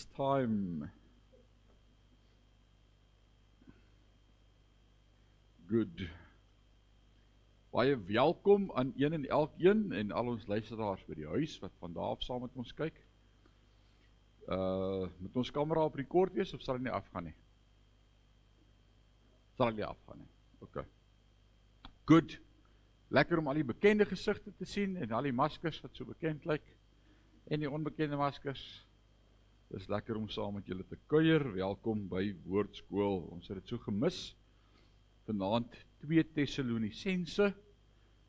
It's time. Good. Baie welkom aan een en elkeen en al ons luisteraars by die huis wat vandag af saam met ons kyk. Moet ons kamera op rekord wees of sal hy nie afgaan nie? Sal hy nie afgaan nie. Okay. Good. Lekker om al die bekende gesigte te sien en al die maskers wat so bekend lyk en die onbekende maskers. Dis lekker om saam met julle te kuier. Welkom by Woordskool. Ons het dit so gemis. Vanaand 2 Tessalonisense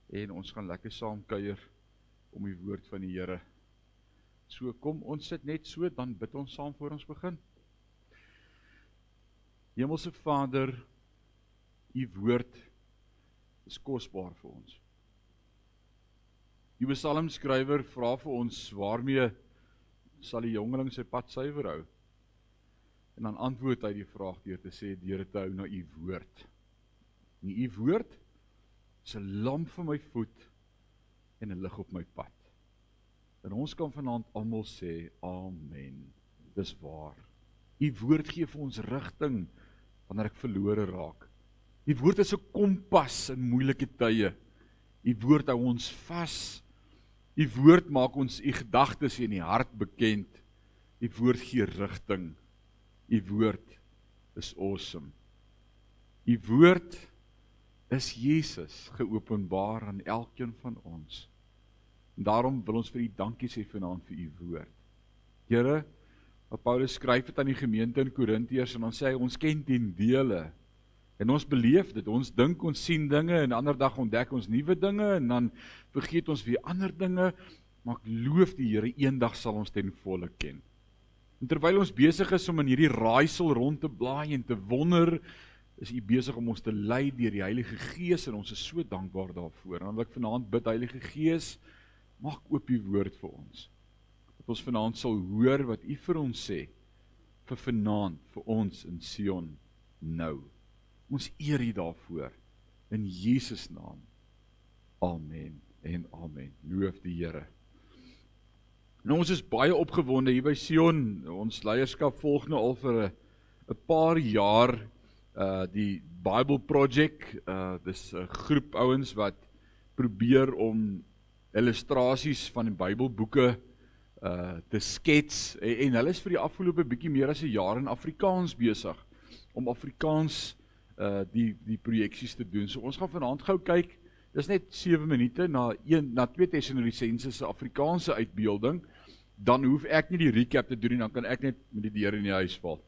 en ons gaan lekker saam kuier om die woord van die Here. So kom ons sit net so, dan bid ons saam voor ons begin. Hemelse Vader, u woord is kosbaar vir ons. Die psalmskrywer vra vir ons, waarmee sal die jongeling sy pad suiwer hou? En dan antwoord hy die vraag deur te sê, deur te hou na u woord. En u woord is 'n lamp vir my voet en 'n lig op my pad. En ons kan vanaand almal sê, amen. Dis waar. U woord gee vir ons rigting wanneer ek verlore raak. U woord is 'n kompas in moeilike tye. U woord hou ons vas. U woord maak ons u gedagtes en die hart bekend. U woord gee rigting. U woord is awesome. U woord is Jesus geopenbaar aan elkeen van ons. En daarom wil ons vir u dankie sê vanaand vir u woord. Here, wat Paulus skryf het aan die gemeente in Korintiërs en dan sê hy, ons ken ten dele. En ons beleef dit, ons dink, ons sien dinge en ander dag ontdek ons nuwe dinge en dan vergeet ons weer ander dinge, maar ek loof die Here, eendag sal ons ten volle ken. En terwyl ons besig is om in hierdie raaisel rond te blaai en te wonder, is u besig om ons te lei deur die Heilige Gees en ons is so dankbaar daarvoor. En dan wil ek vanaand bid, Heilige Gees, maak oop u woord vir ons. Dat ons vanaand sal hoor wat u vir ons sê, vir vanaand, vir ons in Sion nou. Ons eer u daarvoor, in Jesus naam. Amen en amen. Loof die Here. Nou, ons is baie opgewonde hier by Sion. Ons leierskap volg nou al vir 'n paar jaar die Bible Project. Dis 'n groep ouens wat probeer om illustrasies van die Bybelboeke te skets en hulle is vir die afgelope bietjie meer as 'n jaar in Afrikaans besig om Afrikaans die projeksies te doen. So ons gaan vanaand gou kyk. Dis net 7 minute na 2 Tessalonisense se Afrikaanse uitbeelding. Dan hoef ek nie die recap te doen nie, dan kan ek net met die deur in die huis val.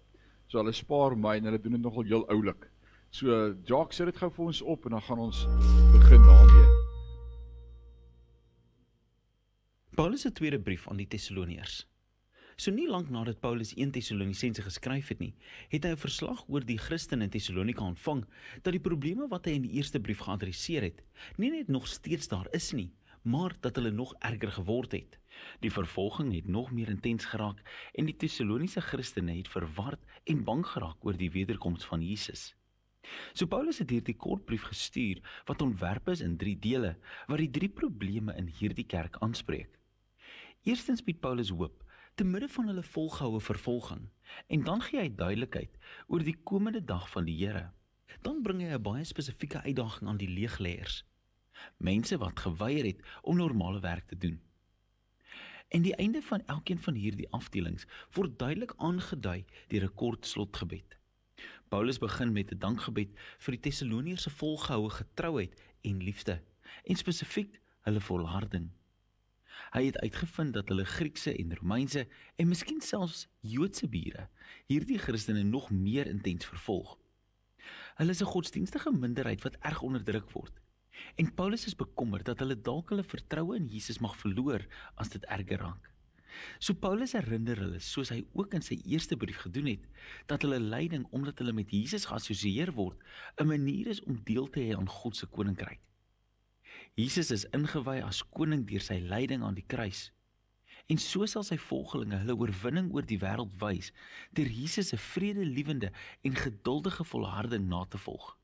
So hulle spaar my en hulle doen dit nogal heel oulik. So Jacques, sit dit gou vir ons op en dan gaan ons begin daarmee. Paulus se tweede brief aan die Tessaloniërs. So nie lank nadat Paulus 1 Tessalonisense geskryf het nie, het hy 'n verslag oor die Christene in Tessalonika ontvang, dat die probleme wat hy in die eerste brief geadresseer het, nie net nog steeds daar is nie, maar dat hulle nog erger geword het. Die vervolging het nog meer intens geraak en die Tessaloniese Christene het verward en bang geraak oor die wederkoms van Jesus. So Paulus het hierdie kort brief gestuur wat ontwerp is in 3 dele, wat die 3 probleme in hierdie kerk aanspreek. Eerstens bied Paulus hoop te midde van hulle volgehoue vervolging, en dan gee hy duidelikheid oor die komende dag van die Here. Dan bring hy 'n baie spesifieke uitdaging aan die leegleiers, mense wat geweier het om normale werk te doen. En die einde van elkeen van hierdie afdelings word duidelik aangedui deur 'n kort slotgebed. Paulus begin met 'n dankgebed vir die Tessaloniërs se volgehoue getrouheid en liefde, en spesifiek hulle volharding. Hy het uitgevind dat hulle Griekse en Romeinse en miskien selfs Joodse bure hierdie Christene nog meer intens vervolg. Hulle is 'n godsdienstige minderheid wat erg onderdruk word. En Paulus is bekommerd dat hulle dalk hulle vertroue in Jesus mag verloor as dit erger raak. So Paulus herinner hulle, soos hy ook in sy eerste brief gedoen het, dat hulle lyding omdat hulle met Jesus geassosieer word, 'n manier is om deel te hê aan God se koninkryk. Jesus is ingewy as koning deur sy lyding aan die kruis. En so sal sy volgelinge hulle oorwinning oor die wêreld wys, deur Jesus se vredelewende en geduldige volharding na te volg.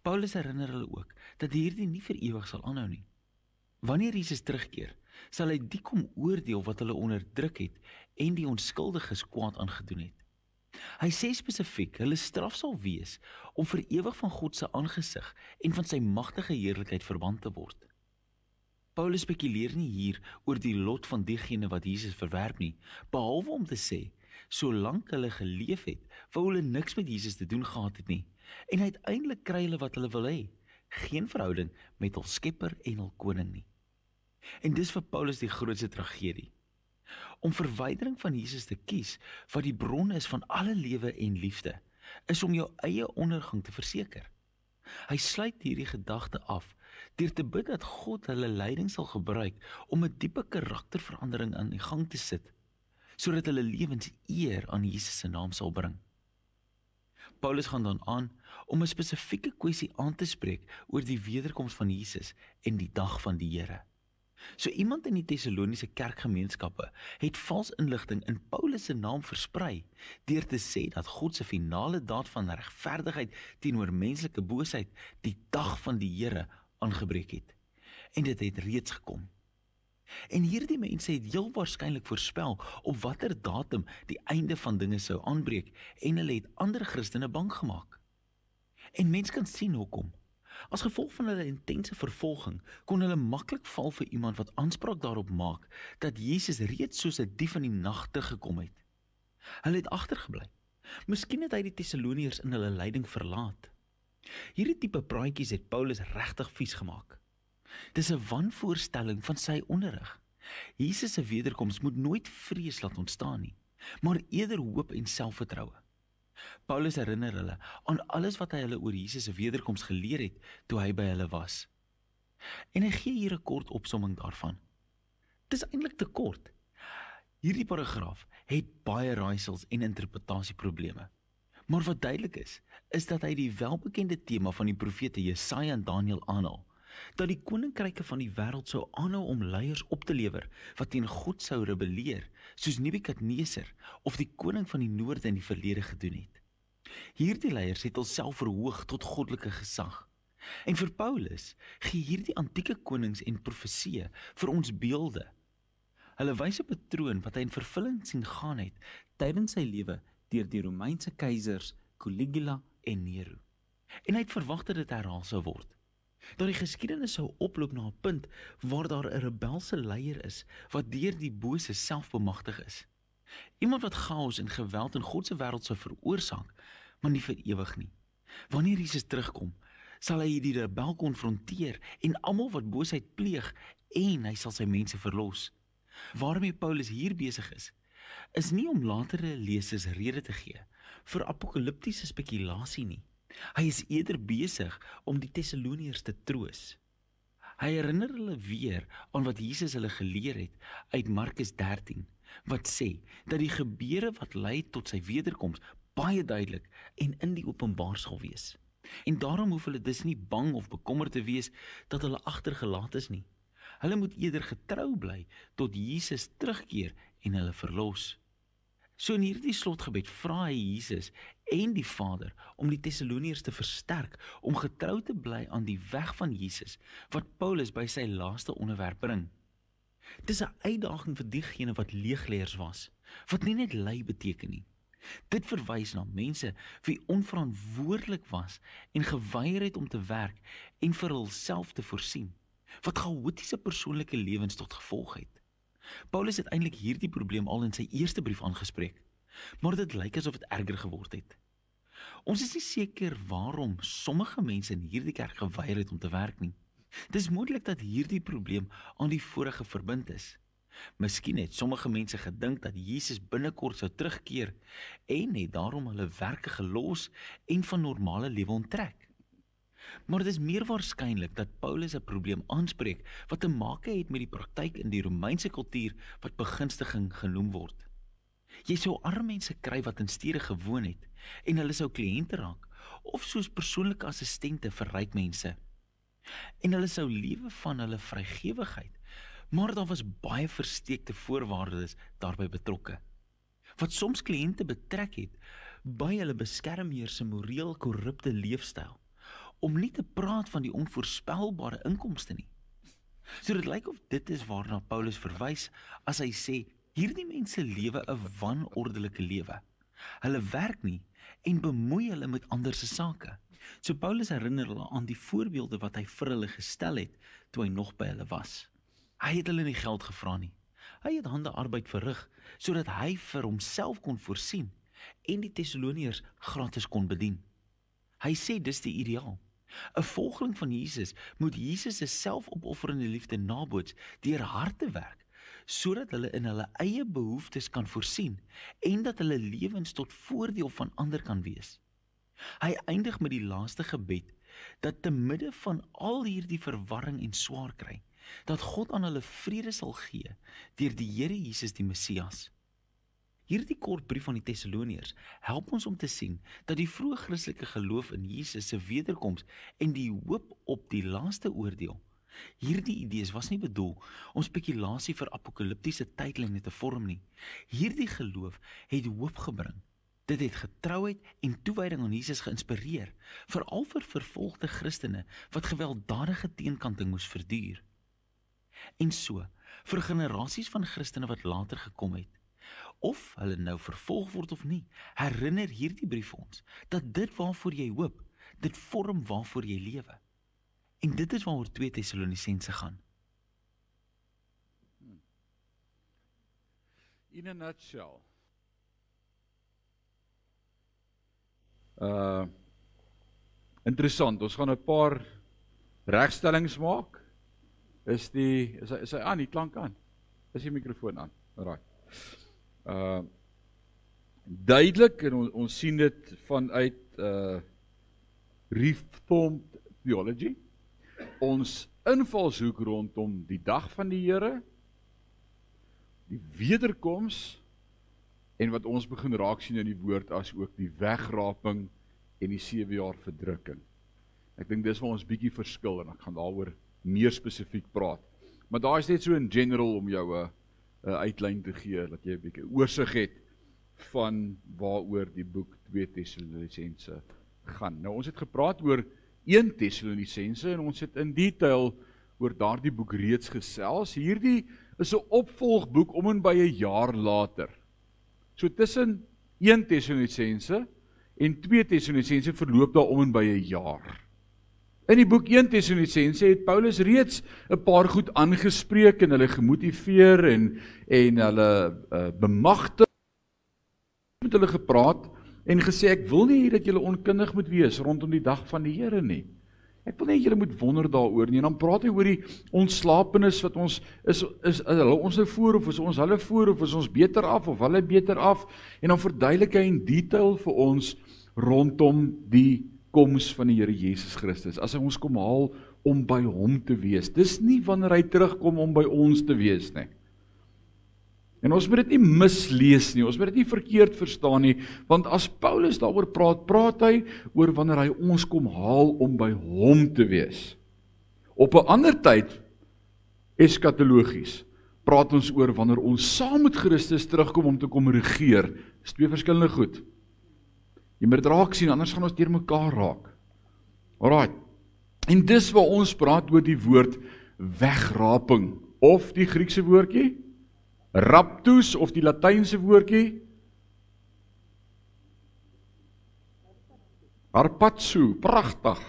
Paulus herinner hulle ook dat hierdie nie vir ewig sal aanhou nie. Wanneer Jesus terugkeer, sal hy die kom oordeel wat hulle onderdruk het en die onskuldiges kwaad aangedoen het. Hy sê spesifiek, hulle straf sal wees om vir ewig van God se aangesig en van sy magtige heerlikheid verban te word. Paulus spekuleer nie hier oor die lot van diegene wat Jesus verwerp nie, behalwe om te sê, solank hulle geleef het, wou hulle niks met Jesus te doen gehad het nie, en uiteindelik kry hulle wat hulle wil hê, geen verhouding met hul skepper en hul koning nie. En dis vir Paulus die grootste tragedie. Om verwydering van Jesus te kies, wat die bron is van alle lewe en liefde, is om jou eie ondergang te verseker. Hy sluit hierdie gedagte af, deur te bid dat God hulle leiding sal gebruik om 'n diepe karakterverandering aan die gang te sit, sodat hulle lewens eer aan Jesus se naam sal bring. Paulus gaan dan aan om 'n spesifieke kwessie aan te spreek oor die wederkoms van Jesus en die dag van die Here. So iemand in die Tessaloniese kerkgemeenskappe het vals inligting in Paulus se naam versprei deur te sê dat God se finale daad van regverdigheid teenoor menslike boosheid die dag van die Here aangebreek het. En dit het reeds gekom. En hierdie mense het heel waarskynlik voorspel op watter datum die einde van dinge sou aanbreek en hulle het ander Christene bang gemaak. En mens kan sien hoekom. As gevolg van hulle intense vervolging kon hulle maklik val vir iemand wat aanspraak daarop maak dat Jesus reeds soos 'n dief in die nag gekom het. Hulle het agtergebly. Miskien het hy die Tessaloniërs in hulle lyding verlaat. Hierdie tipe praatjies het Paulus regtig vies gemaak. Dis 'n wanvoorstelling van sy onderrig. Jesus se wederkoms moet nooit vrees laat ontstaan nie, maar eerder hoop en selfvertroue. Paulus herinner hulle aan alles wat hy hulle oor Jesus se wederkoms geleer het toe hy by hulle was. En hy gee hier 'n kort opsomming daarvan. Dis eintlik te kort. Hierdie paragraaf het baie raaisels en interpretasieprobleme. Maar wat duidelik is dat hy die welbekende tema van die profete Jesaja en Daniël aanhaal, dat die koninkryke van die wêreld sou aanhou om leiers op te lewer wat teen God sou rebelleer, soos Nebukadneser of die koning van die noorde in die verlede gedoen het. Hierdie leiers het hulself verhoog tot goddelike gesag. En vir Paulus gee hierdie antieke konings en profesieë vir ons beelde. Hulle wys 'n patroon wat hy in vervulling sien gaan het tydens sy lewe deur die Romeinse keisers Caligula en Nero. En hy het verwag dat dit herhaal sou word. Dat die geskiedenis sou oploop na 'n punt waar daar 'n rebelse leier is wat deur die bose self bemagtig is. Iemand wat chaos en geweld in God se wêreld sou veroorsaak, maar nie vir ewig nie. Wanneer Jesus terugkom, sal hy die rebel konfronteer en almal wat boosheid pleeg en hy sal sy mense verlos. Waarmee Paulus hier besig is nie om latere lesers rede te gee vir apokaliptiese spekulasie nie. Hy is eerder besig om die Tessaloniërs te troos. Hy herinner hulle weer aan wat Jesus hulle geleer het uit Markus 13, wat sê dat die gebeure wat lei tot sy wederkoms baie duidelik en in die openbaar sal wees. En daarom hoef hulle dus nie bang of bekommerd te wees dat hulle agtergelaat is nie. Hulle moet eerder getrou bly tot Jesus terugkeer en hulle verlos. So in hierdie slotgebed vra hy Jesus en die Vader om die Tessaloniërs te versterk om getrou te bly aan die weg van Jesus wat Paulus by sy laaste onderwerp bring. Dis 'n uitdaging vir diegene wat leegleiers was, wat nie net lei beteken nie. Dit verwys na mense wie onverantwoordelik was en geweier het om te werk en vir hulself te voorsien, wat chaotiese persoonlike lewens tot gevolg het. Paulus het eintlik hierdie probleem al in sy eerste brief aangespreek, maar dit lyk asof dit erger geword het. Ons is nie seker waarom sommige mense in hierdie kerk geweier het om te werk nie. Dis moontlik dat hierdie probleem aan die vorige verbind is. Miskien het sommige mense gedink dat Jesus binnekort sou terugkeer en het daarom hulle werke gelos en van normale lewe onttrek. Maar dit is meer waarskynlik dat Paulus 'n probleem aanspreek wat te maak het met die praktyk in die Romeinse kultuur wat begunstiging genoem word. Jy sou arme mense kry wat in stede gewoon het en hulle sou kliënte raak of soos persoonlike assistente vir ryk mense. En hulle sou lewe van hulle vrygewigheid, maar daar was baie versteekte voorwaardes daarbey betrokke. Wat soms kliënte betrek het by hulle beskermheer se moreel korrupte leefstyl, om nie te praat van die onvoorspelbare inkomste nie. So dit lyk of dit is waarna Paulus verwys as hy sê, hierdie mense lewe 'n wanordelike lewe. Hulle werk nie en bemoei hulle met ander se sake. So Paulus herinner hulle aan die voorbeelde wat hy vir hulle gestel het toe hy nog by hulle was. Hy het hulle nie geld gevra nie. Hy het handearbeid verrig sodat hy vir homself kon voorsien en die Tessaloniërs gratis kon bedien. Hy sê dis die ideaal. 'n Volgeling van Jesus moet Jesus se selfopofferende liefde naboots deur hard te werk, sodat hulle in hulle eie behoeftes kan voorsien en dat hulle lewens tot voordeel van ander kan wees. Hy eindig met die laaste gebed dat te midde van al hierdie verwarring en swaar kry, dat God aan hulle vrede sal gee deur die Here Jesus die Messias. Hierdie kort brief aan die Tessaloniërs help ons om te sien dat die vroeë Christelike geloof in Jesus se wederkoms en die hoop op die laaste oordeel. Hierdie idees was nie bedoel om spekulasie vir apokaliptiese tydlyne te vorm nie. Hierdie geloof het hoop gebring. Dit het getrouheid en toewyding aan Jesus geïnspireer, veral vir vervolgde Christene wat gewelddadige teenkanting moes verduur. En so, vir generasies van Christene wat later gekom het, of hulle nou vervolg word of nie, herinner hierdie brief ons, dat dit waarvoor jy hoop, dit vorm waarvoor jy lewe. En dit is waaroor 2 Tessalonisense gaan. In a nutshell. Interessant, ons gaan 'n paar regstellings maak. Is hy aan, die klank aan? Is die mikrofoon aan? Alright. Duidelik, en ons sien dit vanuit Reformed Theology, ons invalshoek rondom die dag van die Here, die wederkoms, en wat ons begin raak sien in die woord as ook die wegraping en die 7 jaar verdrukking. Ek dink dis waar ons bietjie verskil en ek gaan daaroor meer spesifiek praat. Maar daar is net so in general om jou 'n uitlyn te gee, dat jy 'n bietjie oorsig het van waaroor die boek 2 Tessalonisense gaan. Nou ons het gepraat oor 1 Tessalonisense en ons het in detail oor daardie boek reeds gesels. Hierdie is 'n opvolgboek om en by 'n jaar later. So tussen 1 Tessalonisense en 2 Tessalonisense verloop daar om en by 'n jaar. In die boek 1 Tessalonisense het Paulus reeds 'n paar goed aangespreek en hulle gemotiveer en hulle bemagtig met hulle gepraat en gesê ek wil nie dat julle onkundig moet wees rondom die dag van die Here nie. Ek wil nie julle moet wonder daaroor nie. En dan praat hy oor die ontslapenis wat ons is hulle ons nou voor of is ons hulle voor of is ons beter af of hulle beter af en dan verduidelik hy in detail vir ons rondom die koms van die Here Jesus Christus. As hy ons kom haal om by hom te wees. Dis nie wanneer hy terugkom om by ons te wees nie. En ons moet dit nie mislees nie, ons moet dit nie verkeerd verstaan nie, want as Paulus daaroor praat, praat hy oor wanneer hy ons kom haal om by hom te wees. Op 'n ander tyd, eskatologies, praat ons oor wanneer ons saam met Christus terugkom om te kom regeer. Dis 2 verskillende goed. Jy moet dit raak sien, anders gaan ons deur mekaar raak. Alright, en dis waar ons praat oor die woord wegraping, of die Griekse woordjie, raptus, of die Latynse woordjie, harpazo, pragtig.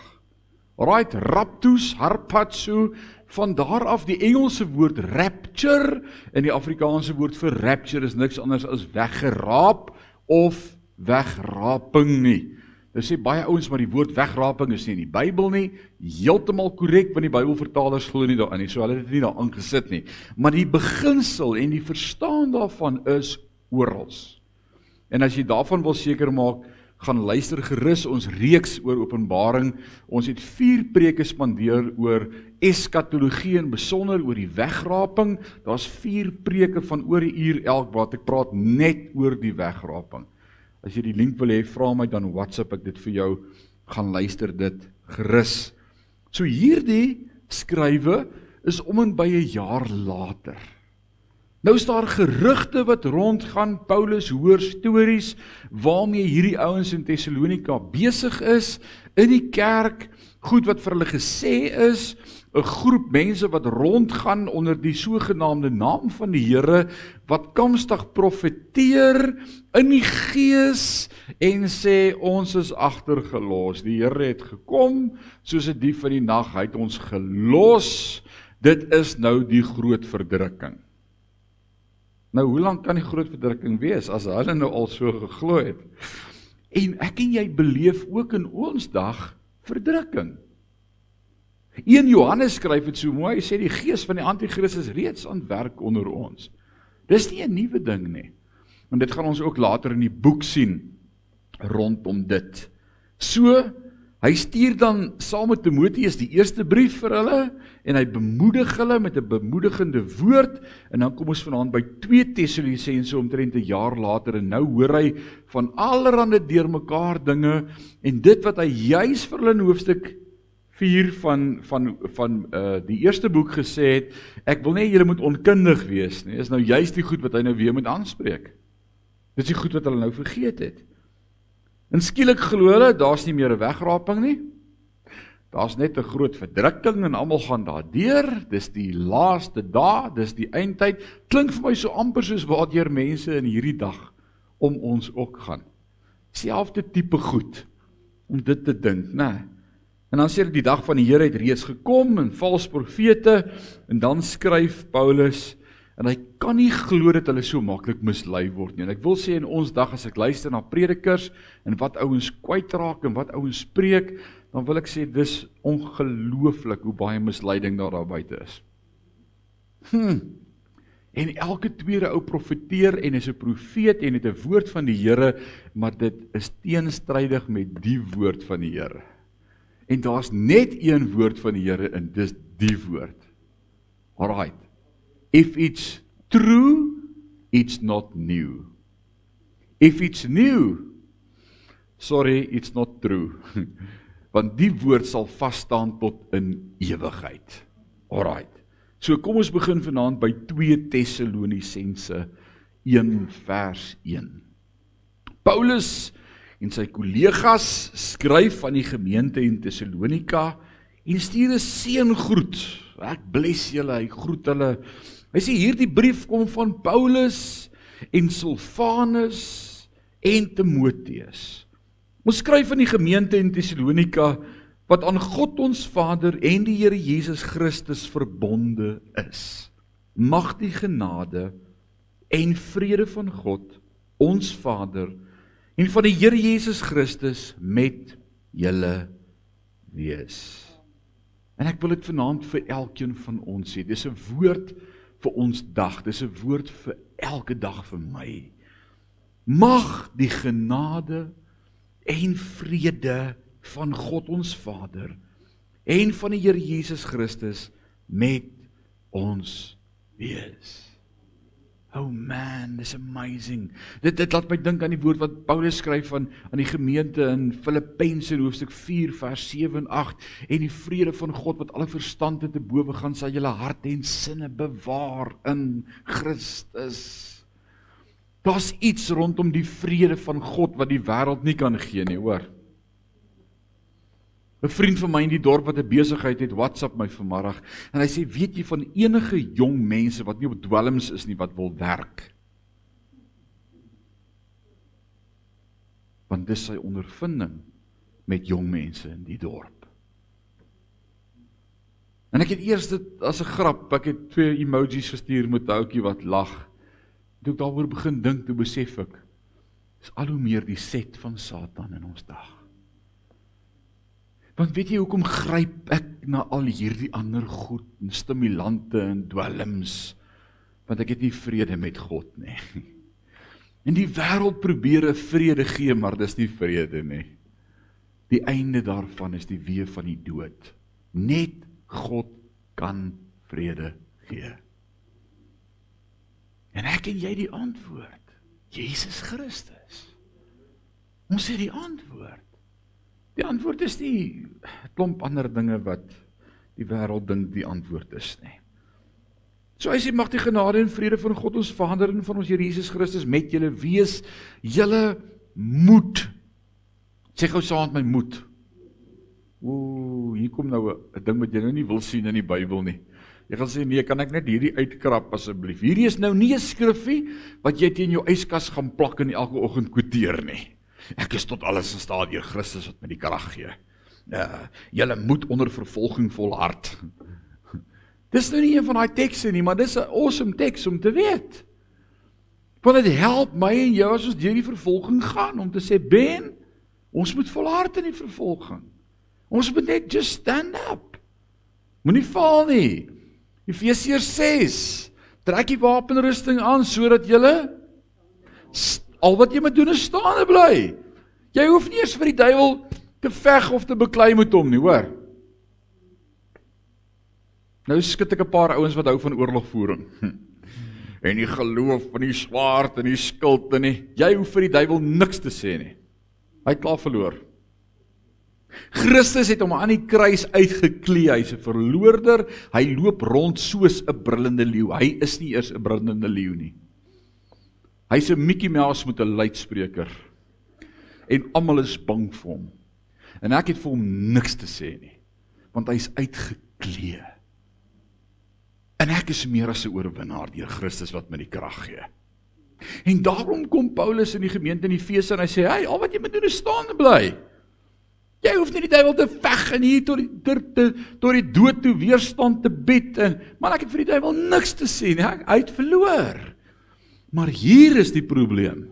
Alright, raptus, harpazo, van daar af die Engelse woord rapture, en die Afrikaanse woord vir rapture is niks anders as weggeraap, of wegraping nie. Dit sê baie ouens, maar die woord wegraping is nie in die Bybel nie, heeltemal korrek, want die Bybelvertalers glo nie daarin nie, so hulle het dit nie daar aangesit nie. Maar die beginsel en die verstaan daarvan is orals. En as jy daarvan wil seker maak, gaan luister gerus ons reeks oor Openbaring. Ons het 4 preke spandeer oor eskatologie en besonder oor die wegraping. Daar's 4 preke van oor 'n uur elk wat ek praat net oor die wegraping. As jy die link wil hê, vra my dan WhatsApp ek dit vir jou, gaan luister dit gerus. So hierdie skrywe is om en by 'n jaar later. Nou is daar gerugte wat rondgaan, Paulus hoor stories waarmee hierdie ouens in Thessalonika besig is, in die kerk, goed wat vir hulle gesê is, 'n groep mense wat rondgaan onder die sogenaamde naam van die Here, wat kamstig profeteer in die gees en sê, ons is agtergelos, die Here het gekom, soos 'n dief in die nag, hy het ons gelos, dit is nou die groot verdrukking. Nou, hoe lang kan die groot verdrukking wees, as hulle nou al so geglo het? En ek en jy beleef ook in ons dag verdrukking. 1 Johannes skryf het so mooi, hy sê die gees van die Antichrist is reeds aan werk onder ons. Dis nie 'n nuwe ding nie. En dit gaan ons ook later in die boek sien, rondom dit. So, hy stuur dan saam met Timoteus die eerste brief vir hulle, en hy bemoedig hulle met 'n bemoedigende woord, en dan kom ons vanaand by 2 Tessalonisense omtrent 'n jaar later, en nou hoor hy van allerhande deurmekaar dinge, en dit wat hy juis vir hulle in hoofstuk 4 van die eerste boek gesê het, ek wil nie julle moet onkundig wees nie, is nou juist die goed wat hy nou weer moet aanspreek. Dit is die goed wat hulle nou vergeet het. En skielik glo hulle, daar's nie meer 'n wegraping nie. Daar's net 'n groot verdrukking en almal gaan daardeur. Dis die laaste dae, dis die eindtyd. Klink vir my so amper soos waardeur mense in hierdie dag om ons ook gaan. Selfde tipe goed om dit te dink, né? En dan sê die dag van die Here het reeds gekom en vals profete, en dan skryf Paulus, en hy kan nie glo dat hulle so maklik mislei word nie. En ek wil sê in ons dag, as ek luister na predikers, en wat ouens kwytraak, en wat ouens spreek, dan wil ek sê, dis ongelooflik hoe baie misleiding daar buite is. En elke tweede ou profeteer, en is 'n profeet, en het 'n woord van die Here, maar dit is teenstrydig met die woord van die Here. En daar's net een woord van die Here, en dis die woord. Alright. If it's true, it's not new. If it's new, sorry, it's not true. Want die woord sal vasstaan tot in ewigheid. Alright. So kom ons begin vanaand by 2 Tessalonisense 1 vers 1. Paulus en sy kollegas skryf aan die gemeente in Thessalonika en stuur 'n seëngroet. Ek bless julle, hy groet hulle. Hy sê hierdie brief kom van Paulus en Silvanus en Timoteus. Ons skryf aan die gemeente in Thessalonika wat aan God ons Vader en die Here Jesus Christus verbonde is. Mag die genade en vrede van God, ons Vader, en van die Here Jesus Christus met julle wees. En ek wil dit vanaand vir elkeen van ons sê, dis 'n woord vir ons dag, dis 'n woord vir elke dag vir my. Mag die genade en vrede van God ons Vader en van die Here Jesus Christus met ons wees. Oh man, this is amazing. Dit laat my dink aan die woord wat Paulus skryf aan die gemeente in Filippense in hoofstuk 4 vers 7 en 8, en die vrede van God wat alle verstand te bowe gaan, sal julle harte en sinne bewaar in Christus. Daar's iets rondom die vrede van God wat die wêreld nie kan gee nie, hoor. 'n vriend van my in die dorp wat 'n besigheid het, WhatsApp my vanmiddag, en hy sê, weet jy van enige jong mense wat nie op dwelms is nie, wat wil werk? Want dis sy ondervinding met jong mense in die dorp. En ek het eers dit as 'n grap, ek het 2 emojis gestuur met 'n ouetjie wat lag. Toe ek daaroor begin dink, toe besef ek, is al hoe meer die set van Satan in ons dag. Want weet jy hoekom gryp ek na al hierdie ander goed, en stimulante en dwelms, want ek het nie vrede met God nie. En die wêreld probeer 'n vrede gee, maar dis nie vrede nie. Die einde daarvan is die weë van die dood. Net God kan vrede gee. En ek en jy die antwoord, Jesus Christus. Ons het die antwoord. Die antwoord is nie 'n klomp ander dinge wat die wêreld dink die antwoord is nie. So hy sê, mag die genade en vrede van God ons Vader en van ons Here Jesus Christus met julle wees, julle moed. Sê gou saam met my moed. Hier kom nou 'n ding wat jy nou nie wil sien in die Bybel nie. Jy gaan sê, nee, kan ek net hierdie uitkrap asseblief. Hierdie is nou nie 'n skrifgie wat jy teen jou yskas gaan plak en elke oggend kwoteer nie. Ek is tot alles in staat deur Christus wat my die krag gee. Julle moet onder vervolging volhard. Dis nou nie een van daai tekste nie, maar dis 'n awesome teks om te weet. Want dit help my en jou as ons deur die vervolging gaan, om te sê, Ben, ons moet volhard in die vervolging. Ons moet net just stand up. Moenie val nie. Efesiërs 6, trek die wapenrusting aan, sodat julle, al wat jy moet doen is staande bly. Jy hoef nie eers vir die duiwel te veg of te beklei met hom nie, hoor. Nou skit ek 'n paar ouens wat hou van oorlogvoering. En die geloof van die swaard en die skild en nie. Jy hoef vir die duiwel niks te sê nie. Hy het klaar verloor. Christus het hom aan die kruis uitgeklee, hy's 'n verloorder, hy loop rond soos 'n brullende leeu. Hy is nie eers 'n brullende leeu nie. Hy's 'n Mickey Mouse met 'n luidspreker. En almal is bang vir hom. En ek het vir hom niks te sê nie, want hy's uitgeklee. En ek is meer as 'n oorwinnaar deur Christus wat my die krag gee. En daarom kom Paulus in die gemeente in Efese en hy sê, hey, al wat jy moet doen is staande bly. Jy hoef nie die duiwel te veg en hier tot die dood toe weerstand te bied. Maar ek het vir die duiwel niks te sê nie, hy het verloor. Maar hier is die probleem.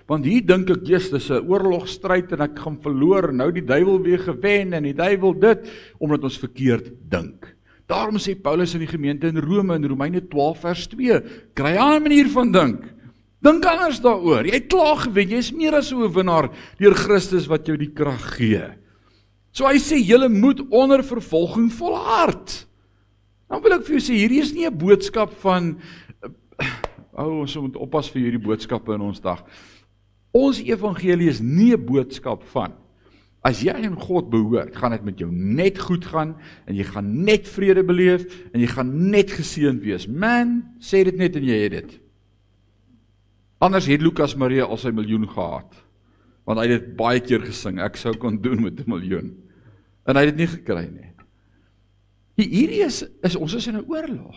Want hier dink ek, dis 'n oorlogstryd en ek gaan verloor, nou die duiwel weer gewen en die duiwel dit, omdat ons verkeerd dink. Daarom sê Paulus in die gemeente in Rome, in Romeine 12 vers 2, kry 'n ander manier van dink. Dink anders daaroor. Jy het klaar gewen, jy is meer as 'n oorwinnaar deur Christus wat jou die krag gee. So hy sê, julle moet onder vervolging volhard. Dan wil ek vir jou sê, hierdie is nie 'n boodskap van, ons moet oppas vir hierdie boodskappe in ons dag. Ons evangelie is nie 'n boodskap van, as jy aan God behoort, gaan dit met jou net goed gaan, en jy gaan net vrede beleef, en jy gaan net geseënd wees. Man, sê dit net en jy het dit. Anders het Lukas Maria al sy miljoen gehad, want hy het dit baie keer gesing, ek sou kon doen met 'n miljoen. En hy het dit nie gekry nie. Hierdie is ons is in 'n oorlog.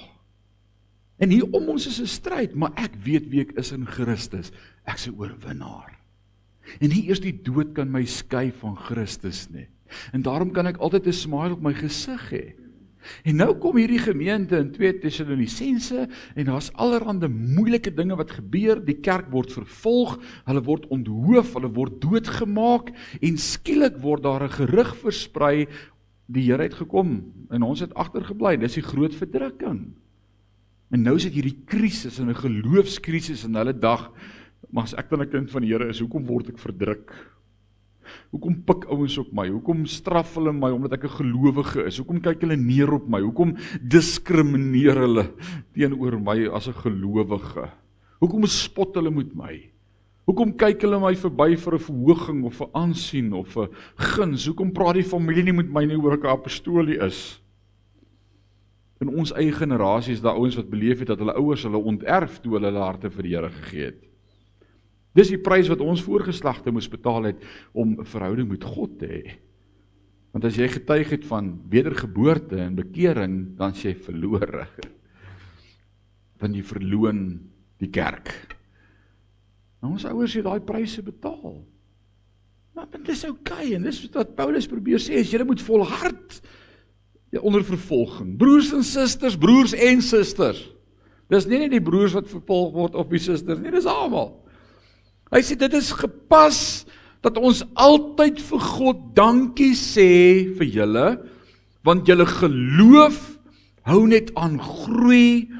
En hier om ons is 'n stryd, maar ek weet wie ek is in Christus. Ek's 'n oorwinnaar. En nie eers die dood kan my skei van Christus nie. En daarom kan ek altyd 'n smile op my gesig hê. En nou kom hierdie gemeente in 2 Tessalonisense en daar's allerhande moeilike dinge wat gebeur. Die kerk word vervolg, hulle word onthoof, hulle word doodgemaak en skielik word daar 'n gerug versprei, die Here het gekom en ons het agtergebly. Dis die groot verdrukking. En nou sit hierdie krisis en 'n geloofskrisis in hulle dag. Maar as ek dan 'n kind van die Here is, hoekom word ek verdruk? Hoekom pik ouens op my? Hoekom straf hulle my omdat ek 'n gelowige is? Hoekom kyk hulle neer op my? Hoekom diskrimineer hulle teenoor my as 'n gelowige? Hoekom spot hulle met my? Hoekom kyk hulle my verby vir 'n verhoging of 'n aansien of 'n guns? Hoekom praat die familie nie met my nie oor ek 'n apostolie is? In ons eie generasie is daar ouens wat beleef het dat hulle ouers hulle onterf toe hulle harte vir die Here gegee het. Dis die prys wat ons voorgeslagte moes betaal het om 'n verhouding met God te hê. Want as jy getuig het van wedergeboorte en bekering, dan is jy verlore. Want jy verloon die kerk. Nou, ons ouers het daai pryse betaal. Maar dit is okay, en dis wat Paulus probeer sê, is julle moet volhard onder vervolging. Broers en susters, broers en susters. Dis nie net die broers wat vervolg word of die susters nie, dis almal. Hy sê dit is gepas dat ons altyd vir God dankie sê vir julle, want julle geloof hou net aan groei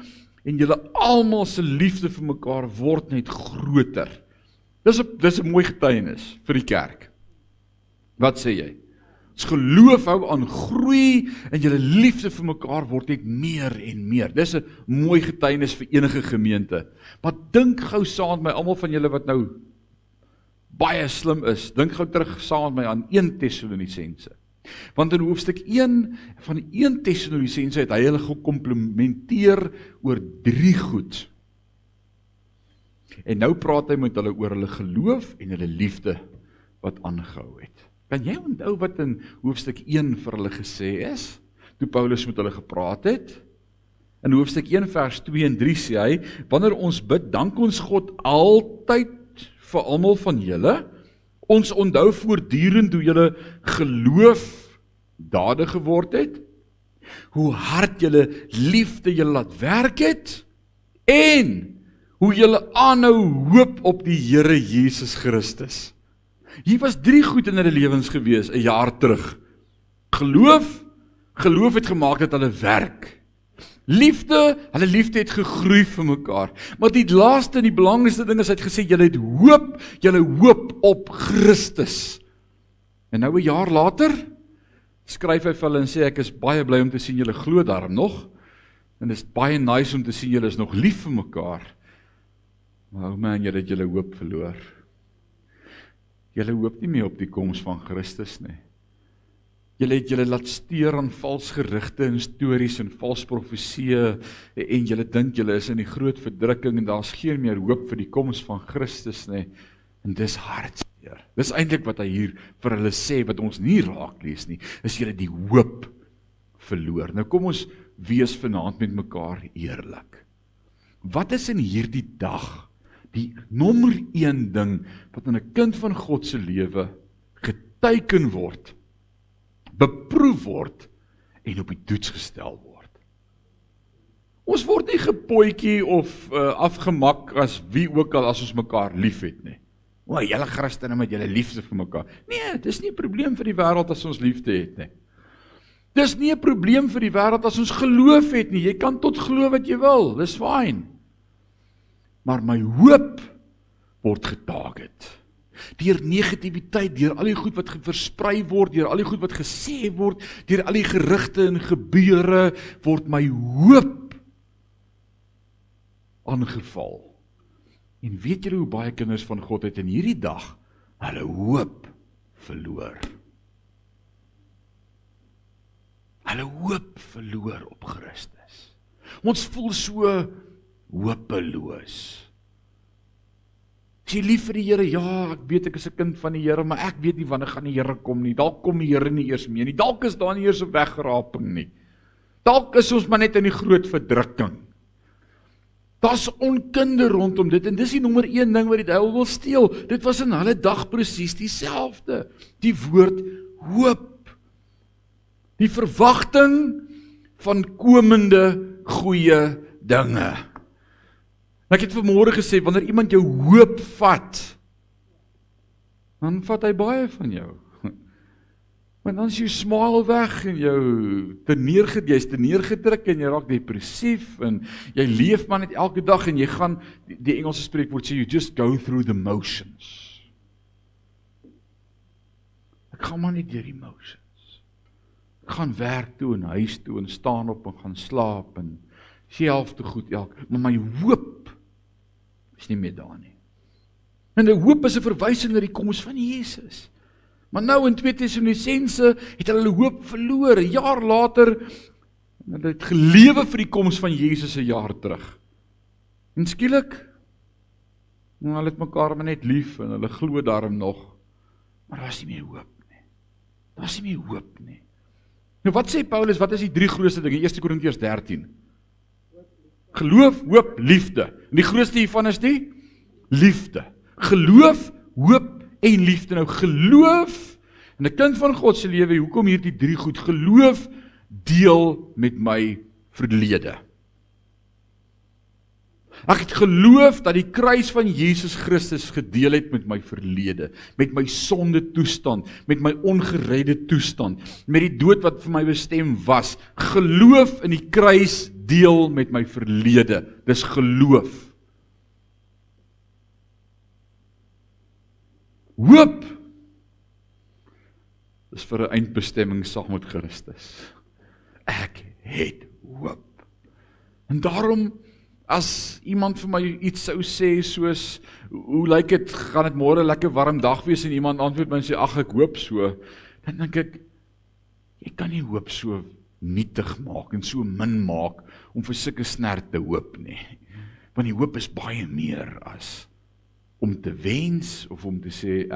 en julle almal se liefde vir mekaar word net groter. Dis 'n mooi getuienis vir die kerk. Wat sê jy? Ons geloof hou aan groei en julle liefde vir mekaar word net meer en meer. Dis 'n mooi getuienis vir enige gemeente. Maar dink gou saam met my, almal van julle wat nou baie slim is, dink gou terug saam met my aan 1 Tessalonisense. Want in hoofstuk 1 van 1 Tessalonisense het hy hulle gekomplimenteer oor 3 goed. En nou praat hy met hulle oor hulle geloof en hulle liefde wat aangehou het. Kan jy onthou wat in hoofstuk 1 vir hulle gesê is, toe Paulus met hulle gepraat het? In hoofstuk 1 vers 2 en 3 sê hy, wanneer ons bid, dank ons God altyd vir almal van julle. Ons onthou voortdurend hoe julle geloof dadig geword het, hoe hard julle liefde julle laat werk het, en hoe julle aanhou hoop op die Here Jesus Christus. Hier was 3 goed in hulle lewens gewees, 'n jaar terug. Geloof het gemaak dat hulle werk. Hulle liefde het gegroei vir mekaar. Maar die laaste en die belangrikste ding is, hy het gesê, julle hoop op Christus. En nou 'n jaar later, skryf hy vir hulle en sê, ek is baie bly om te sien julle glo daarom nog, en dit is baie nice om te sien julle is nog lief vir mekaar. Maar man, julle het julle hoop verloor. Julle hoop nie meer op die koms van Christus nie. Julle het julle laat steur aan vals gerigte en stories en vals profesieë en julle dink julle is in die groot verdrukking en daar's geen meer hoop vir die koms van Christus nie. En dis hartseer. Dis eintlik wat hy hier vir hulle sê wat ons nie raak lees nie, is julle die hoop verloor. Nou kom ons wees vanaand met mekaar eerlik. Wat is in hierdie dag die nommer 1 ding wat in 'n kind van God se lewe geteken word, beproef word en op die toets gestel word? Ons word nie gepootjie of afgemak as wie ook al as ons mekaar lief het nie. O, julle Christene met julle liefde vir mekaar. Nee, dis nie 'n probleem vir die wêreld as ons liefde het nie. Dis nie 'n probleem vir die wêreld as ons geloof het nie. Jy kan tot glo wat jy wil, dis fyn. Maar my hoop word getarget. Deur negativiteit, deur al die goed wat versprei word, deur al die goed wat gesê word, deur al die gerugte en gebeure, word my hoop aangeval. En weet julle hoe baie kinders van God het in hierdie dag hulle hoop verloor? Hulle hoop verloor op Christus. Ons voel so hopeloos. Is jy lief vir die Here? Ja, ek weet ek is 'n kind van die Here, maar ek weet nie wanneer gaan die Here kom nie. Dalk kom die Here nie eers mee nie. Dalk is daar nie eers 'n wegraping nie. Dalk is ons maar net in die groot verdrukking. Daar's onkunde rondom dit en dis die nommer 1 ding wat die duiwel wil steel. Dit was in hulle dag presies dieselfde. Die woord hoop. Die verwagting van komende goeie dinge. Ek het vanmôre gesê, wanneer iemand jou hoop vat, dan vat hy baie van jou. Maar dan is jou smile weg en jy's te neergedruk en jy raak depressief en jy leef maar net elke dag en jy gaan, die Engelse spreekwoord sê, you just go through the motions. Ek gaan maar net deur die motions. Ek gaan werk toe en huis toe en staan op en gaan slaap en self te goed maar my hoop is nie meer daar nie. En die hoop is 'n verwysing na die koms van Jesus. Maar nou in 2 Tessalonisense het hulle hoop verloor, 'n jaar later, en hulle het gelewe vir die koms van Jesus 'n jaar terug. En skielik, hulle het mekaar maar net lief en hulle glo daarom nog, maar daar is nie meer hoop nie. Daar is nie meer hoop nie. Nou wat sê Paulus, wat is die 3 grootste dinge? 1 Korintiërs 13. Geloof, hoop, liefde. En die grootste hiervan is die liefde. Geloof, hoop en liefde. Nou geloof, in 'n kind van God se lewe, hoekom hierdie 3 goed? Geloof deel met my verlede. Ek het geloof dat die kruis van Jesus Christus gedeel het met my verlede, met my sonde toestand, met my ongeredde toestand, met die dood wat vir my bestem was. Geloof in die kruis deel met my verlede. Dis geloof. Hoop is vir 'n eindbestemming saam met Christus. Ek het hoop. En daarom, as iemand vir my iets sou sê soos, hoe lyk dit, gaan dit môre lekker warm dag wees en iemand antwoord my en sê, ag ek hoop so, dan dink ek, Jy kan nie hoop so nietig maak en so min maak om vir sulke snert te hoop nie. Want die hoop is baie meer as om te wens of om te sê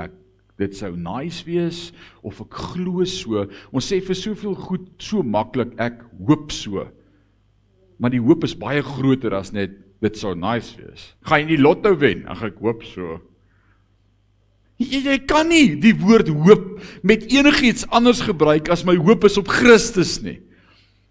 dit sou nice wees of ek glo so. Ons sê vir soveel goed so maklik ek hoop so. Maar die hoop is baie groter as net dit sou nice wees. Gaan jy die lotto wen? Ag ek hoop so. Jy kan nie die woord hoop met enigiets anders gebruik as my hoop is op Christus nie.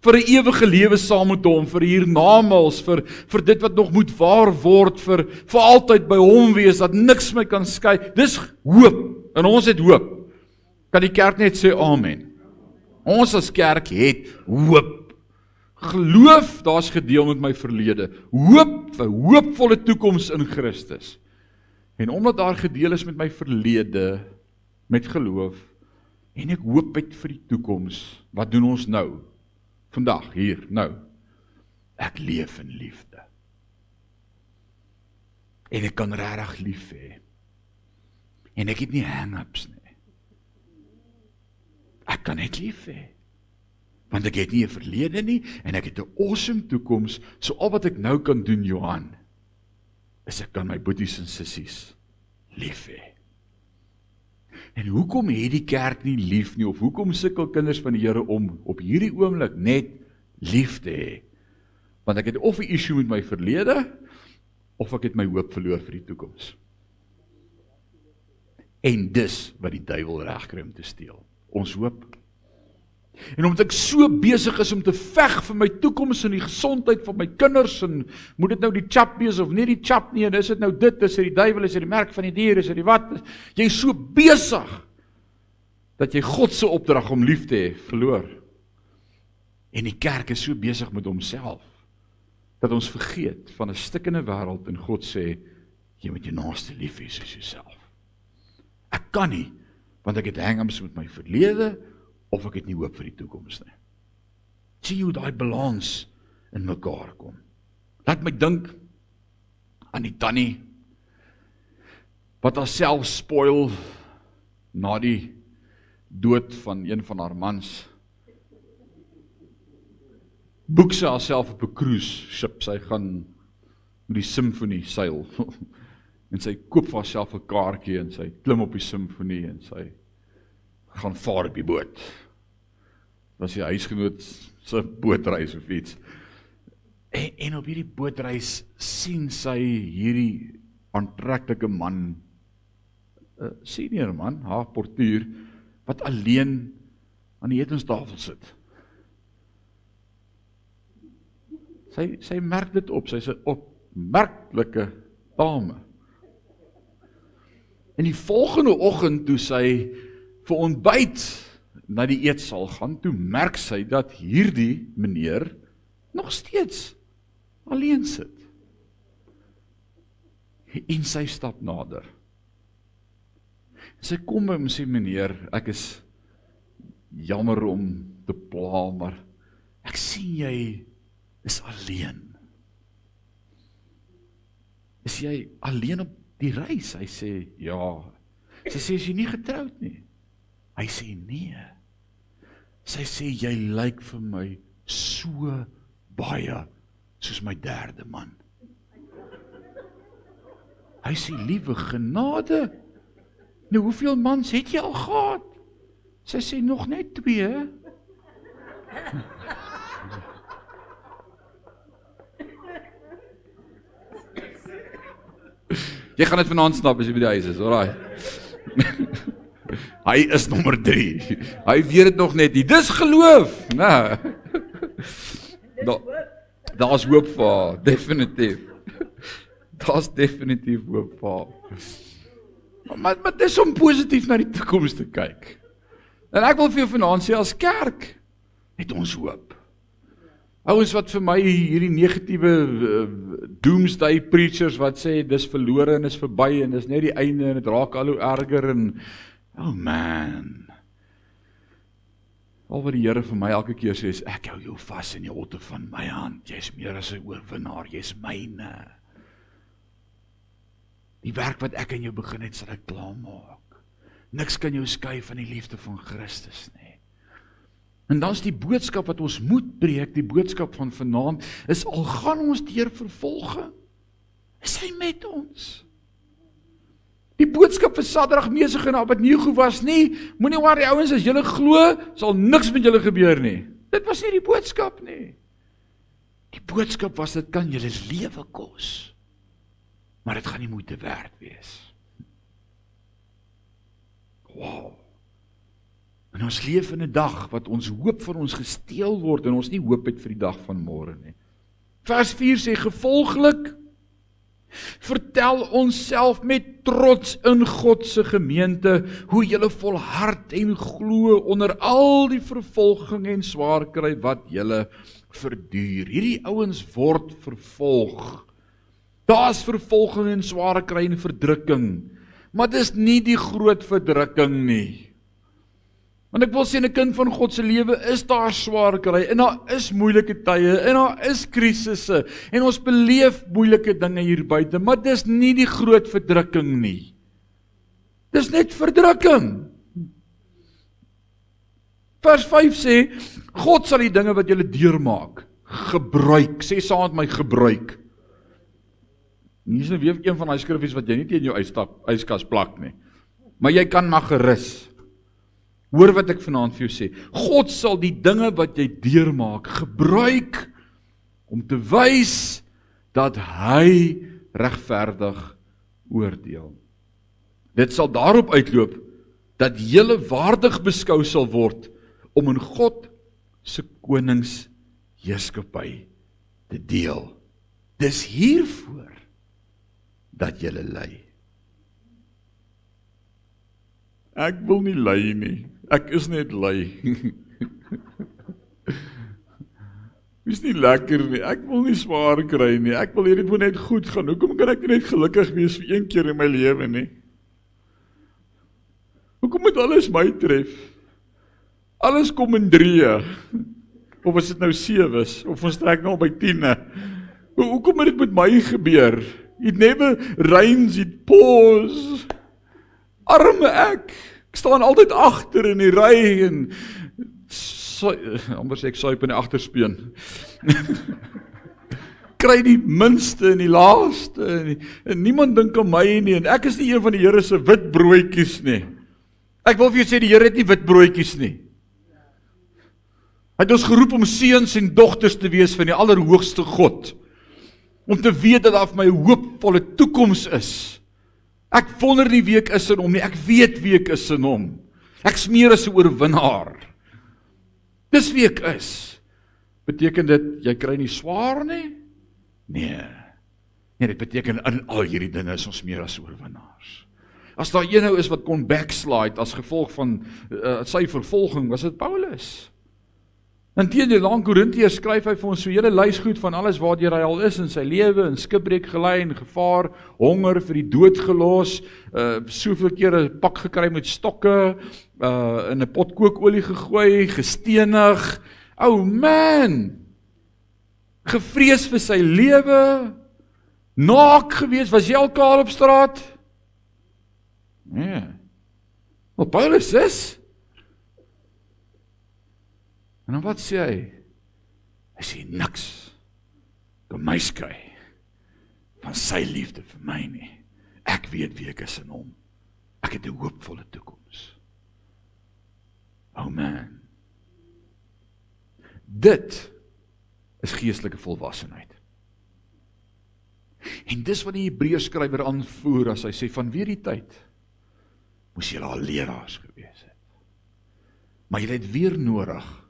Vir 'n ewige lewe saam met hom, vir hiernamaals, vir dit wat nog moet waar word, vir altyd by hom wees, dat niks my kan skei. Dis hoop, en ons het hoop. Kan die kerk net sê amen? Ons as kerk het hoop. Geloof, daar's gedeel met my verlede. Hoop, 'n hoopvolle toekoms in Christus. En omdat daar gedeel is met my verlede, met geloof, en ek hoop uit vir die toekoms, wat doen ons nou? Vandag, hier, nou. Ek leef in liefde. En ek kan regtig lief hê. En ek het nie hang-ups nie. Ek kan net lief hê. Want ek het nie 'n verlede nie, en ek het 'n awesome toekoms, so al wat ek nou kan doen, Johan, is ek kan my boeties en sissies lief hê. En hoekom het die kerk nie lief nie, of hoekom sukkel kinders van die Here om op hierdie oomblik net lief te hê? Want ek het of 'n issue met my verlede, of ek het my hoop verloor vir die toekoms. En dis wat die duiwel reg kry om te steel, ons hoop. En omdat ek so besig is om te veg vir my toekoms en die gesondheid van my kinders, en moet dit nou die chap wees of nie die chap nie, en is dit nou dit, is dit die duiwel, is dit die merk van die dier, is dit die wat, jy is so besig, dat jy God se opdrag om lief te hê, verloor. En die kerk is so besig met homself, dat ons vergeet van 'n stikkende wêreld, en God sê, jy moet jou naaste lief hê soos jouself. Ek kan nie, want ek het hang-ups met my verlede, of ek het nie hoop vir die toekoms nie. Sien hoe daai balans in mekaar kom. Laat my dink aan die tannie, wat haarself spoil, na die dood van een van haar mans. Boek sy haarself op 'n cruise ship, sy gaan met die simfonie seil, en sy koop vir haarself 'n kaartjie, en sy klim op die simfonie, en sy gaan vaar op die boot. Was die huisgenoot se bootreis of iets. En op hierdie bootreis sien sy hierdie aantreklike man, senior man, haar portuur, wat alleen aan die etenstafel sit. Sy merk dit op, sy is 'n opmerklike dame. En die volgende oggend toe sy vir ontbyt na die eetsaal gaan, toe merk sy dat hierdie meneer nog steeds alleen sit. En sy stap nader. Sy kom by hom en sê, meneer, ek is jammer om te pla, maar ek sien jy is alleen. Is jy alleen op die reis? Hy sê, ja. Sy sê, is jy nie getroud nie? Hy sê, nee. Sy sê, jy lyk vir my so baie soos my derde man. Hy sê, liewe genade, nou hoeveel mans het jy al gehad? Sy sê, nog net 2. Jy gaan dit vanaand snap as jy by die huis is, alraai. Hy is nommer 3. Hy weet dit nog net nie. Dis geloof. Nee. Daar's hoop vir haar, definitief. Daar's definitief hoop vir haar. Maar dis om positief na die toekoms te kyk. En ek wil vir jou vanaand sê, as kerk, het ons hoop. Ouens wat vir my hierdie negatiewe doomsday preachers wat sê, dis verlore en is verby en dis net die einde en het raak al hoe erger en, oh man. Al wat die Here vir my elke keer sê is, ek hou jou vas in die holte van my hand, jy is meer as 'n oorwinnaar, jy is myne. Die werk wat ek in jou begin het, sal ek klaarmaak. Niks kan jou skei van die liefde van Christus nie. En dan is die boodskap wat ons moet breek, die boodskap van vanaand, is al gaan ons deur vervolging, is hy met ons. Die boodskap vir Sadrag, Mesach en Abednego was nie, moenie worry ouens, as julle glo, sal niks met julle gebeur nie. Dit was nie die boodskap nie. Die boodskap was, dit kan julle lewe kos, maar dit gaan nie moeite werd wees. Wow. En ons leef in 'n dag wat ons hoop van ons gesteel word en ons nie hoop het vir die dag van môre nie. Vers 4 sê, gevolglik vertel ons self met trots in God se gemeente hoe julle volhard en glo onder al die vervolging en swaar kry wat julle verduur. Hierdie ouens word vervolg. Daar's vervolging en swaar kry en verdrukking, maar dis nie die groot verdrukking nie. Want ek wil sê, in 'n kind van God se lewe is daar swaar kry, en daar is moeilike tye, en daar is krisisse, en ons beleef moeilike dinge hier buite, maar dis nie die groot verdrukking nie. Dis net verdrukking. Vers 5 sê, God sal die dinge wat julle deurmaak, gebruik, sê saam met my, gebruik. Hier is nou weer een van die skriffies wat jy nie teen jou yskas plak nie, maar jy kan maar gerus. Hoor wat ek vanaand vir jou sê, God sal die dinge wat jy deurmaak, gebruik om te wys dat hy regverdig oordeel. Dit sal daarop uitloop dat julle waardig beskou sal word om in God se koningsheerskappy te deel. Dis hiervoor dat julle ly. Ek wil nie ly nie. Ek is net lui. Is nie lekker nie, ek wil nie swaar kry nie, ek wil hierdie net goed gaan, hoekom kan ek net gelukkig wees vir een keer in my lewe nie? Hoekom moet alles my tref? Alles kom in 3, of as dit nou 7 of ons trek nou by 10. Hoekom moet dit met my gebeur? It never rains, it pours. Arme ek staan altyd agter in die ry en amper sê ek suip in die agterspeen. Kry die minste en die laaste en niemand dink aan my nie en ek is nie een van die Here se wit broodjies nie. Ek wil vir jou sê die Here het nie wit broodjies nie. Hy het ons geroep om seuns en dogters te wees van die Allerhoogste God. Om te weet dat daar vir my 'n hoopvolle toekoms is. Ek wonder nie wie ek is in hom nie, ek weet wie ek is in hom. Ek smeer as 'n oorwinnaar. Dis wie ek is. Beteken dit, jy kry nie swaar nie? Nee, dit beteken in al hierdie dinge is ons meer as oorwinnaars. As daar een nou is wat kon backslide as gevolg van sy vervolging, was dit Paulus. In teenoor aan Korintiërs skryf hy vir ons so 'n hele lys goed van alles waardeur hy al is in sy lewe, in skipbreek gelei en gevaar, honger, vir die dood gelos, soveel kere 'n pak gekry met stokke, in 'n pot kookolie gegooi, gestenig. Oh man! Gevrees vir sy lewe, naak gewees, was jy al kaal op straat? Nee. Maar Paulus is. En dan wat sê hy? Hy sê niks kan my skei van sy liefde vir my nie. Ek weet wie ek is in hom. Ek het 'n hoopvolle toekoms. Oh man. Dit is geestelike volwassenheid. En dis wat die Hebreërskrywer aanvoer as hy sê van weer die tyd moes julle al leraars gewees het. Maar julle het weer nodig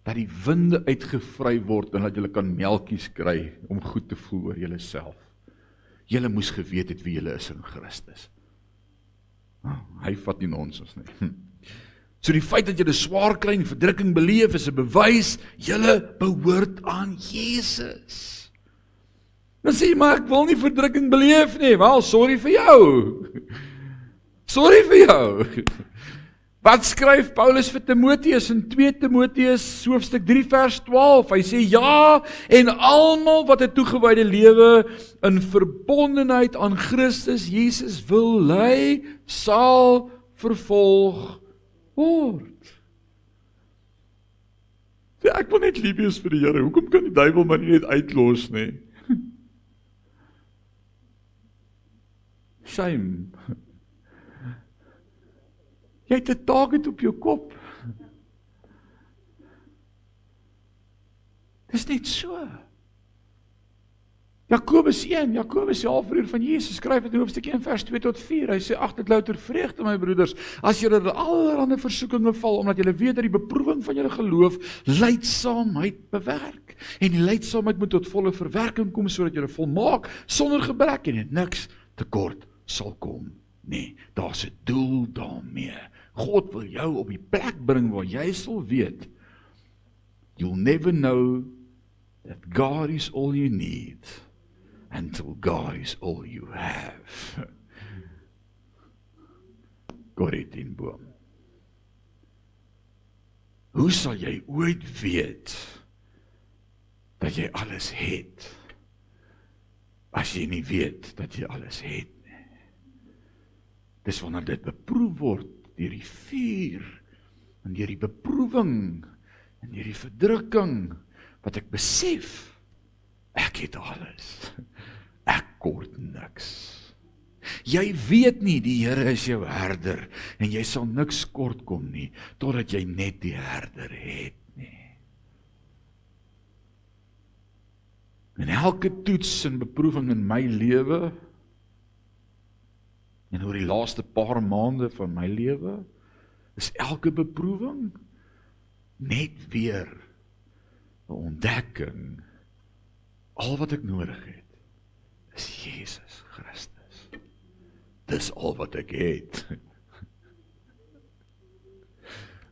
dat die winde uitgevry word en dat julle kan melkies kry om goed te voel oor julle self. Julle moes geweet het wie julle is in Christus. Hy vat nie nonsens nie. So die feit dat julle swaar kry en verdrukking beleef is 'n bewys julle behoort aan Jesus. Dan sê jy, maar ek wil nie verdrukking beleef nie. Wel, sorry vir jou. Sorry vir jou. Wat skryf Paulus vir Timoteus in 2 Timoteus hoofstuk 3 vers 12? Hy sê ja, en almal wat 'n toegewyde lewe in verbondenheid aan Christus Jesus wil lei, sal vervolg word. Sê, ek wil net lief wees vir die Here, hoekom kan die duiwel my nie net uitlos nie? Shame. Jy het 'n target op jou kop. Dis net so. Jakobus 1, Jakobus die halfbroer van Jesus, skryf dit in hoofstuk 1 vers 2 tot 4. Hy sê, ag dit louter vreugde my broeders, as julle in allerlei versoekinge val, omdat julle weet dat die beproewing van julle geloof lydsaamheid bewerk. En die lydsaamheid moet tot volle verwerking kom, sodat julle volmaak, sonder gebrek en niks tekort sal kom. Nee, daar's 'n doel daarmee. God wil jou op die plek bring waar jy sal weet, you'll never know that God is all you need until God is all you have. Corrie ten Boom. Hoe sal jy ooit weet dat jy alles het, as jy nie weet dat jy alles het nie? Dis wanneer dit beproef word deur die vuur, en deur die beproewing, en deur die verdrukking, wat ek besef, ek het alles, ek kort niks. Jy weet nie, die Here is jou herder, en jy sal niks kort kom nie, totdat jy net die herder het nie. En elke toets en beproewing in my lewe, en oor die laaste paar maande van my lewe, is elke beproewing net weer 'n ontdekking. Al wat ek nodig het, is Jesus Christus. Dis al wat ek het.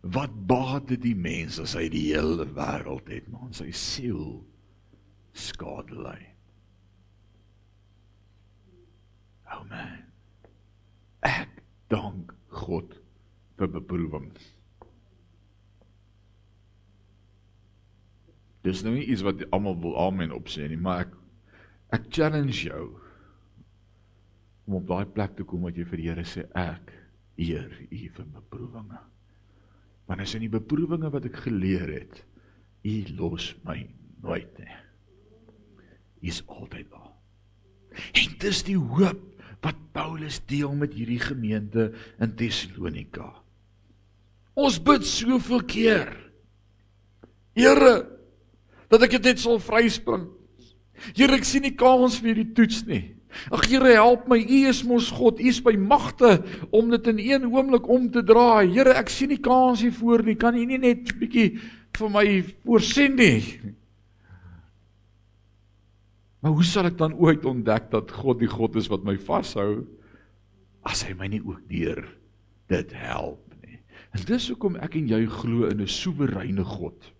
Wat baat dit die mens as hy die hele wêreld het, maar sy siel skade ly? Oh man. Ek dank God vir beproewing. Dis nou nie iets wat almal wil amen opsê nie, maar ek challenge jou om op daai plek te kom wat jy vir die Here sê, ek eer U vir beproewinge. Want as in die beproewinge wat ek geleer het, U los my nooit nie. U is altyd daar. En dis die hoop wat Paulus deel met hierdie gemeente in Thessalonika. Ons bid soveel keer, Here, dat ek dit net sal vryspring. Here, ek sien nie kans vir hierdie toets nie. Ag Here, help my, U is mos God, U is by magte om dit in een oomblik om te draai. Here, ek sien nie kans hiervoor nie, kan U nie net 'n bietjie vir my voorsien nie? Maar hoe sal ek dan ooit ontdek dat God die God is wat my vashou, as hy my nie ook deur dit help nie? En dis hoekom ek en jy glo in 'n soewereine God.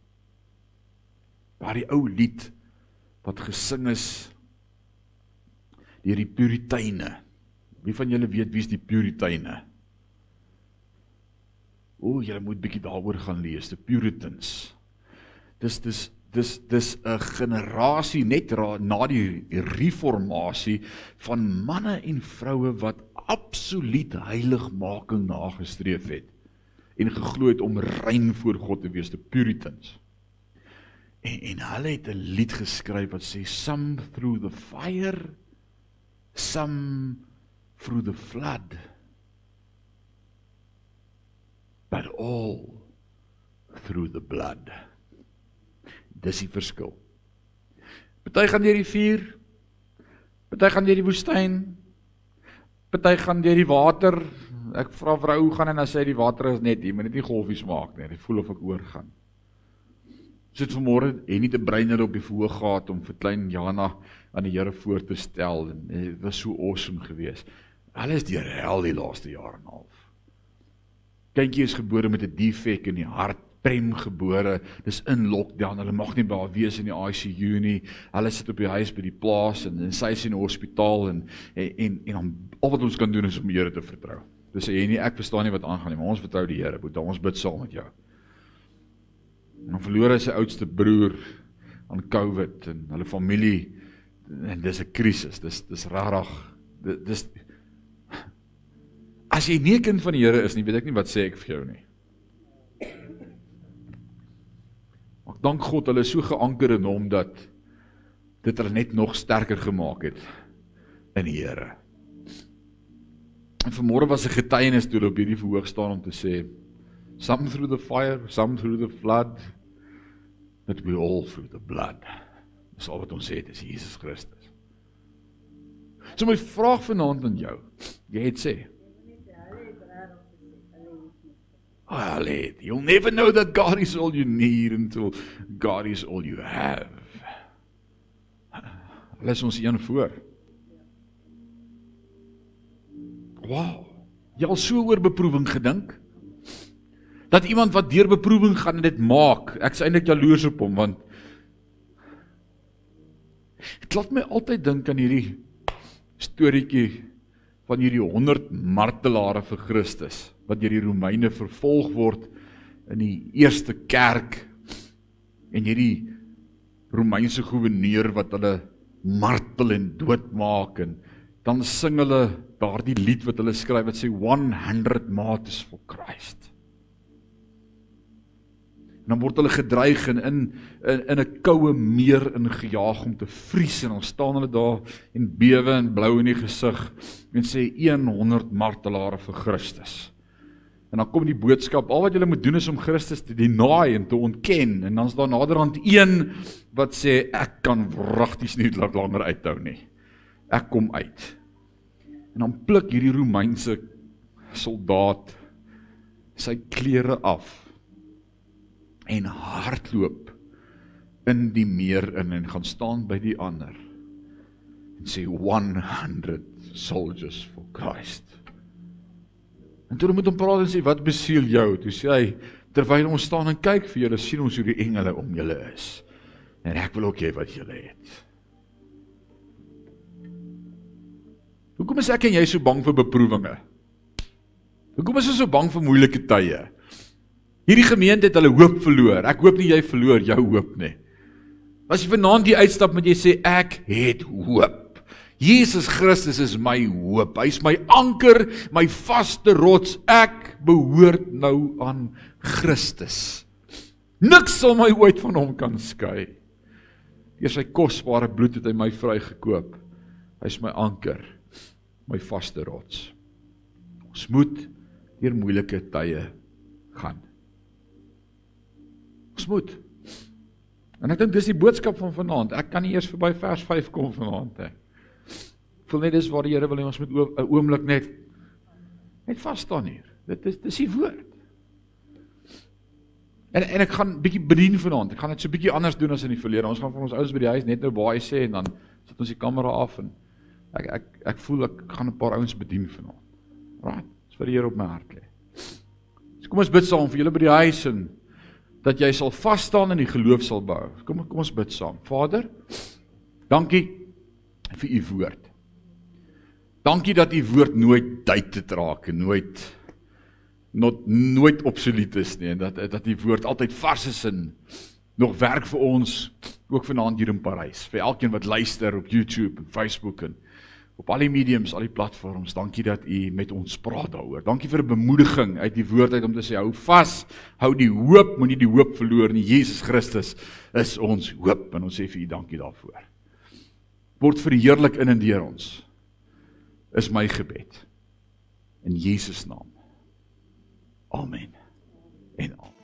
Waar die ou lied wat gesing is deur die Puriteine. Wie van julle weet wie is die Puriteine? Julle moet bietjie daaroor gaan lees, die Puritans. Dis 'n generasie net na die reformatie van manne en vroue wat absoluut heiligmaking nagestreef het en geglo het om rein voor God te wees, die Puritans. En hulle het 'n lied geskryf wat sê, some through the fire, some through the flood, but all through the blood. Dis die verskil. Party gaan deur die vuur, party gaan deur die woestyn, party gaan deur die water. Ek vra vrou hoe gaan en dan sê die water is net hier, maar net nie golfies maak nie. Ek voel of ek oorgaan. Sit vanmôre en nie te breiner op die verhoog gehad om vir klein Jana aan die Here voor te stel, en dit was so awesome geweest. Hulle is deur hel die laaste jaar en 'n half. Kindjie is gebore met 'n defek in die hart, premgebore, dis in lockdown, hulle mag nie by haar wees in die ICU nie, hulle sit op die huis by die plaas, en sy is in die hospitaal, en al wat ons kan doen is om die Here te vertrou. Dis sê jy nie, ek verstaan nie wat aangaan nie, maar ons vertrou die Here, Boeta, ons bid saam met jou. En dan verloor hy sy oudste broer aan COVID, en hulle familie, en dis 'n krisis, dis rarig, dis as jy nie 'n kind van die Here is nie, weet ek nie wat sê ek vir jou nie. Maar Ek dank God, hulle is so geanker in hom, dat dit hulle net nog sterker gemaak het in die Here. En vanmôre was 'n getuienis toe hulle op hierdie verhoog staan om te sê, some through the fire, some through the flood, but we all through the blood. Dis al wat ons het, is Jesus Christus. So my vraag vanaand aan jou, jy het sê, you'll never know that God is all you need until God is all you have. Lees ons een voor. Wow, jy al so oor beproewing gedink? Dat iemand wat deur beproewing gaan en dit maak, ek is eintlik jaloers op hom, want dit laat my altyd dink aan hierdie storieetjie van hierdie 100 martelare vir Christus, wat deur die Romeine vervolg word in die eerste kerk, en hierdie Romeinse gouverneur wat hulle martel en doodmaak, en dan sing hulle daardie lied wat hulle skryf, wat sê 100 martyrs for Christ. En dan word hulle gedreig en in 'n koue meer ingejaag om te vries, en dan staan hulle daar en bewe en blou in die gesig en sê 100 martelare vir Christus. En dan kom die boodskap, al wat julle moet doen is om Christus te deny en te ontken, en dan is daar naderhand een wat sê, ek kan wragties nie langer uithou nie. Ek kom uit. En dan pluk hierdie Romeinse soldaat sy klere af en hardloop in die meer in en gaan staan by die ander en sê 100 soldiers for Christ. En toe moet hom praat en sê, wat besiel jou? Toe sê hy, terwyl ons staan en kyk vir julle, sien ons hoe die engele om julle is. En ek wil ook hê wat julle het. Hoekom is ek en jy so bang vir beproewinge? Hoekom is ons so bang vir moeilike tye? Hierdie gemeente het hulle hoop verloor. Ek hoop nie jy verloor jou hoop nie. As jy vanaand die uitstap met jy sê, ek het hoop. Jesus Christus is my hoop. Hy is my anker, my vaste rots. Ek behoort nou aan Christus. Niks sal my ooit van hom kan skei. Deur sy kosbare bloed het hy my vrygekoop. Hy is my anker, my vaste rots. Ons moet deur moeilike tye gaan. Ons moet. En ek dink dis die boodskap van vanaand. Ek kan nie eers verby vers 5 kom vanaand. Ek voel net dis waar die Here wil hê ons moet 'n oomblik net vas staan hier. Dit is die woord. En ek gaan bietjie bedien vanaand. Ek gaan dit so bietjie anders doen as in die verlede. Ons gaan vir ons ouens by die huis net nou baie sê en dan sit ons die kamera af en ek voel ek gaan 'n paar ouens bedien vanaand. Right? Dis vir die Here op my hart lê. So kom ons bid saam vir julle by die huis en dat jy sal vas staan en die geloof sal bou. Kom ons bid saam. Vader, dankie vir u woord. Dankie dat u woord nooit dated raak en nooit obsolet is nie, en dat die woord altyd vars is en nog werk vir ons, ook vanaand hier in Parys, vir elkeen wat luister op YouTube en Facebook en op al die mediums, al die platforms. Dankie dat u met ons praat daaroor. Dankie vir 'n bemoediging uit die woord uit om te sê, hou vas, hou die hoop, moenie die hoop verloor nie. Jesus Christus is ons hoop, en ons sê vir u dankie daarvoor. Word verheerlik in en deur ons, is my gebed. In Jesus naam. Amen en amen.